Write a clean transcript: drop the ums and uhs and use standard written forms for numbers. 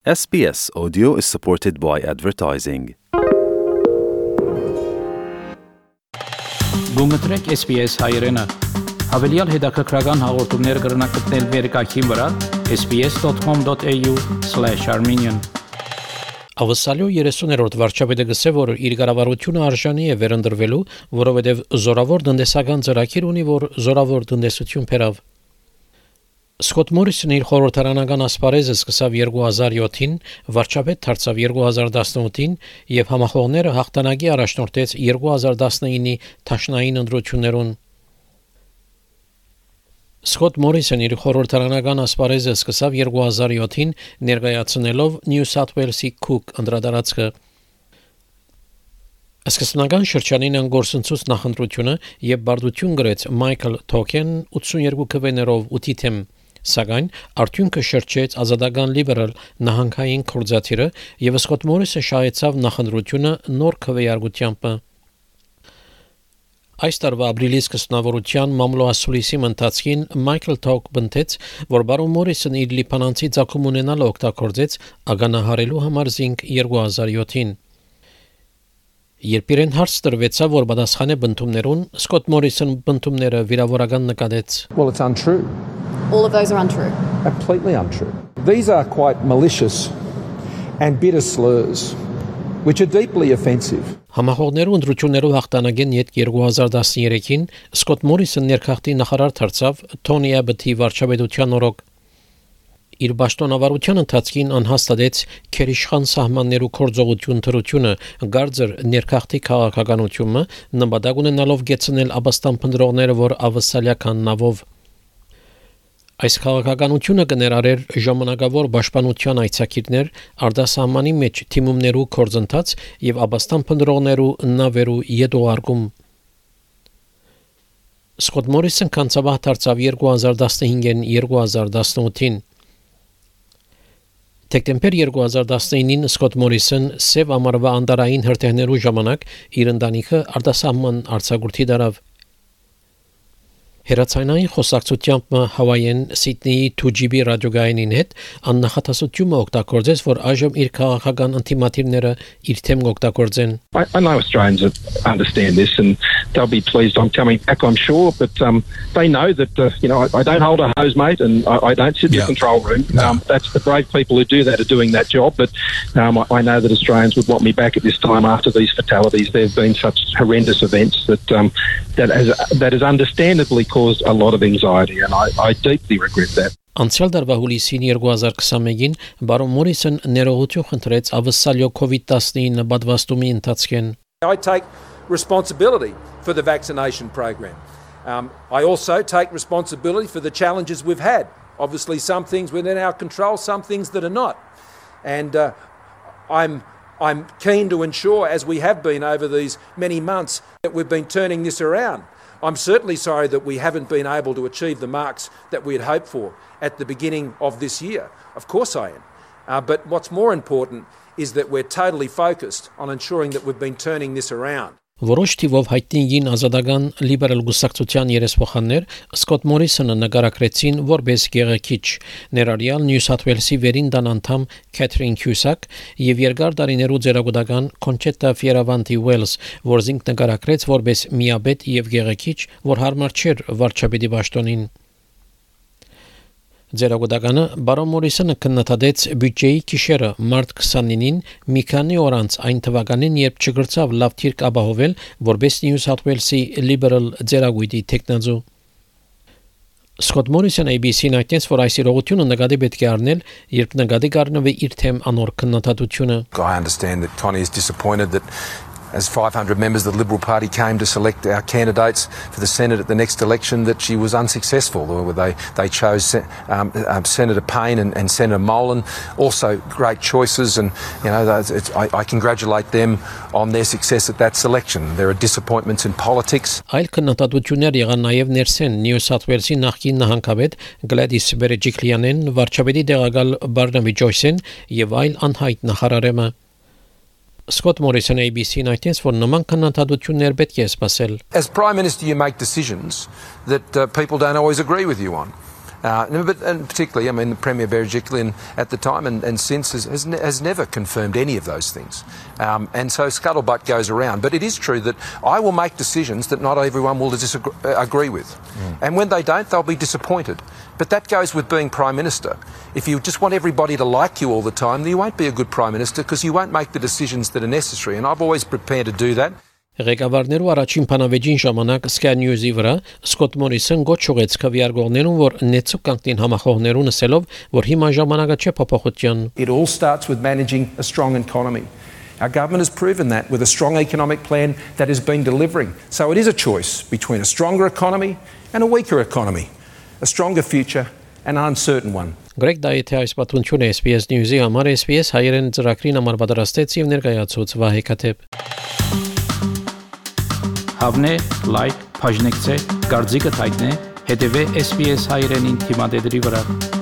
SBS Audio is supported by advertising. Գումտրեք SBS հայրենը։ Հավելյալ հետաքրքրական հաղորդումներ կգրնակցնել վերկայքին վրա sbs.com.au/armenian Ավսալյո 30-րդ վարչապետը գսե, որ իր կառավարությունը արժանի է վերընտրվելու, որովհետև զորավոր տնտեսական ծրագիր ունի, որ զորավոր տնտեսություն բերավ։ Սկոտ Մորիսոնը իր խորհրդարանական ասպարեզը սկսավ 2007-ին, վարչապետ դարձավ 2018-ին եւ համախոհները հաղթանակի առաջնորդեց 2019-ի թաշնային ընտրություններուն։ Սկոտ Մորիսոնը իր խորհրդարանական ասպարեզը սկսավ 2007-ին ներկայացնելով Նյու Սաութ Ուելսի Քուկ անդրադարձը։ Սկզբնական շրջանին անգործնցուց նախընտրությունը եւ բարդություն գրեց Մայքլ Թոքեն 82 քվեներով 8 թեմ, սակայն արդյունքը շրջեց ազատական լիբերալ նահանգային կորզաթիրը եւ Սկոտ Մորիսը շահեցավ նախընտրությունը նոր քվեարկությամբ։ Այս տարվա ապրիլի սկզբնավորության մամլոասուլիսի ընթացքին Մայքլ Թոք բնթեց, որ բարոն Մորիսն իր լիբանանցի ցակում ունենալ օգտագործեց ագանահարելու համար զինք 2007-ին։ Երբ իրեն հարց տրվեցավ, որ պատասխան է բնդումներուն, Սկոտ Մորիսն բնդումները վիրավորական նկատեց։ Well, it's untrue. All of those are untrue. Completely untrue. These are quite malicious and bitter slurs, which are deeply offensive. Համախոհներու ընտրություններով հաղթանակեն յետ 2013-ին Սկոտ Մորիսը ներքախտի նախարար դարձավ Թոնի Աբբոթի վարչապետության օրոք։ Իր պաշտոնավարության ընթացքին անհաստատեց քերիշխան սահմաններու կորձողություն թրությունը, գարձր ներքախտի քաղաքականությունը, նպատակ ունենալով գեցնել աբաստան փնտրողները, որ ավսալյական նավով։ Այս քաղաքականությունը կներառեր ժամանակավոր պաշտպանության այցակիրներ, արտասահմանի մեջ թիմումներու կորձընթաց եւ աբաստան փնտրողներու նավերու յետոարկում։ Սկոտ Մորիսն կանցաբահ դարձավ 2015-ին 2018-ին։ Դեկտեմբեր 2019-ին Սկոտ Մորիսն սև ամառվա անդարային հրթիռներու ժամանակ իր ընտանիքը արտասահման արձակուրդի դարավ։ Հերացանային խոսակցությամբ Հավայեն Սիդնեի 2GB ռադիոգայինին հետ աննախադասությունը օգտագործեց, որ այժմ իր քաղաքական ինտիմատիվները իր թեմ օգտագործեն։ I know Australians understand this and they'll be pleased I'm coming back, I'm sure, but they know that I don't hold a hose, mate, and I don't sit in the control room. That's the brave people who do that are doing that job, but I know that Australians would want me back at this time after these fatalities. There have been such horrendous events that has understandably caused a lot of anxiety, and I deeply regret that. Անցյալ տարվա հուլիսին 2021-ին բարոն Մորիսն ներողություն խնդրեց ավսալյո COVID-19 պատվաստումի ընթացքին։ I take responsibility for the vaccination program. I also take responsibility for the challenges we've had. Obviously some things within our control, some things that are not. And I'm keen to ensure, as we have been over these many months, that we've been turning this around. I'm certainly sorry that we haven't been able to achieve the marks that we had hoped for at the beginning of this year. Of course I am. But what's more important is that we're totally focused on ensuring that we've been turning this around. Որոշ թիվով հայտնին ազատական լիբերալ գուսակցության երեսփոխաններ Սկոտ Մորիսոնը նկարագրեցին որպես գեղեցիկ, ներառյալ Նյու Սաութ Ուելսի վերին դան անդամ Քեթրին Քյուսակ եւ երկար տարիներու ձերագուտական Կոնչետա Ֆիերավանտի Ուելս, որ զինք նկարագրեց որպես միաբետ եւ գեղեցիկ, որ հարմար չէր վարչապետի պաշտոնին։ Ձերագուտականը բարոն Մորիսոնը քննադատեց բյուջեի գիշերը մարտ 29-ին մի քանի օր անց այն թվականին, երբ չգրծավ լավ թիրք ապահովել որպես Նյու Սաութ Ուելսի լիբերալ ձերագույտի տեխնազու։ Սկոտ Մորիսոնը ABC-ին այդտենց, որ այս իրողությունը նկատի պետք է առնել, երբ նկատի կառնվի իր թեմ անոր քննադատությունը։ I understand that Tony is disappointed that as 500 members of the Liberal Party came to select our candidates for the Senate at the next election, that she was unsuccessful. They chose Senator Payne and Senator Molan, also great choices, and I congratulate them on their success at that selection. There are disappointments in politics. Այլ քննադատություններ եղան նաև ներսեն Նյու Սաութ Ուելսի նախկին նահանգապետ Գլադիս Բերեջիկլյանեն, վարչապետի տեղակալ Բարնաբի Ջոյսեն եւ այլ անհայտ նախարարեմը։ Սկոտ Մորիսոնը ABC-ին այդտենց, որ նման քննադատություններ պետք է սպասել։ As Prime Minister you make decisions that people don't always agree with you on. And particularly, I mean, the Premier Berejiklian at the time and since has never confirmed any of those things. And so scuttlebutt goes around. But it is true that I will make decisions that not everyone will agree with. And when they don't, they'll be disappointed. But that goes with being Prime Minister. If you just want everybody to like you all the time, then you won't be a good Prime Minister because you won't make the decisions that are necessary. And I've always prepared to do that. Ղեկավարներու առաջին բանավեճին ժամանակ Sky News-ի վրա Սկոտ Մորիսոն գոչ ուղեց քվեարկողներուն, որ նեցուկ կանգնին համախոհներուն ասելով, որ հիմա ժամանակը չէ փոփոխության. It all starts with managing a strong economy. Our government has proven that with a strong economic plan that has been delivering. So it is a choice between a stronger economy and a weaker economy, a stronger future and an uncertain one. Գրեգ Դայիթի այս պատմությունը SBS News-ի համար SBS հայերեն ծրագրին համար պատրաստեց եւ ներկայացուց Վահե Քաթեփ. Հավնե, լայք, բաժնեկցե, դարձիկը թայտնե, հետեւե SBS հայերենին թիմադեդի վրա.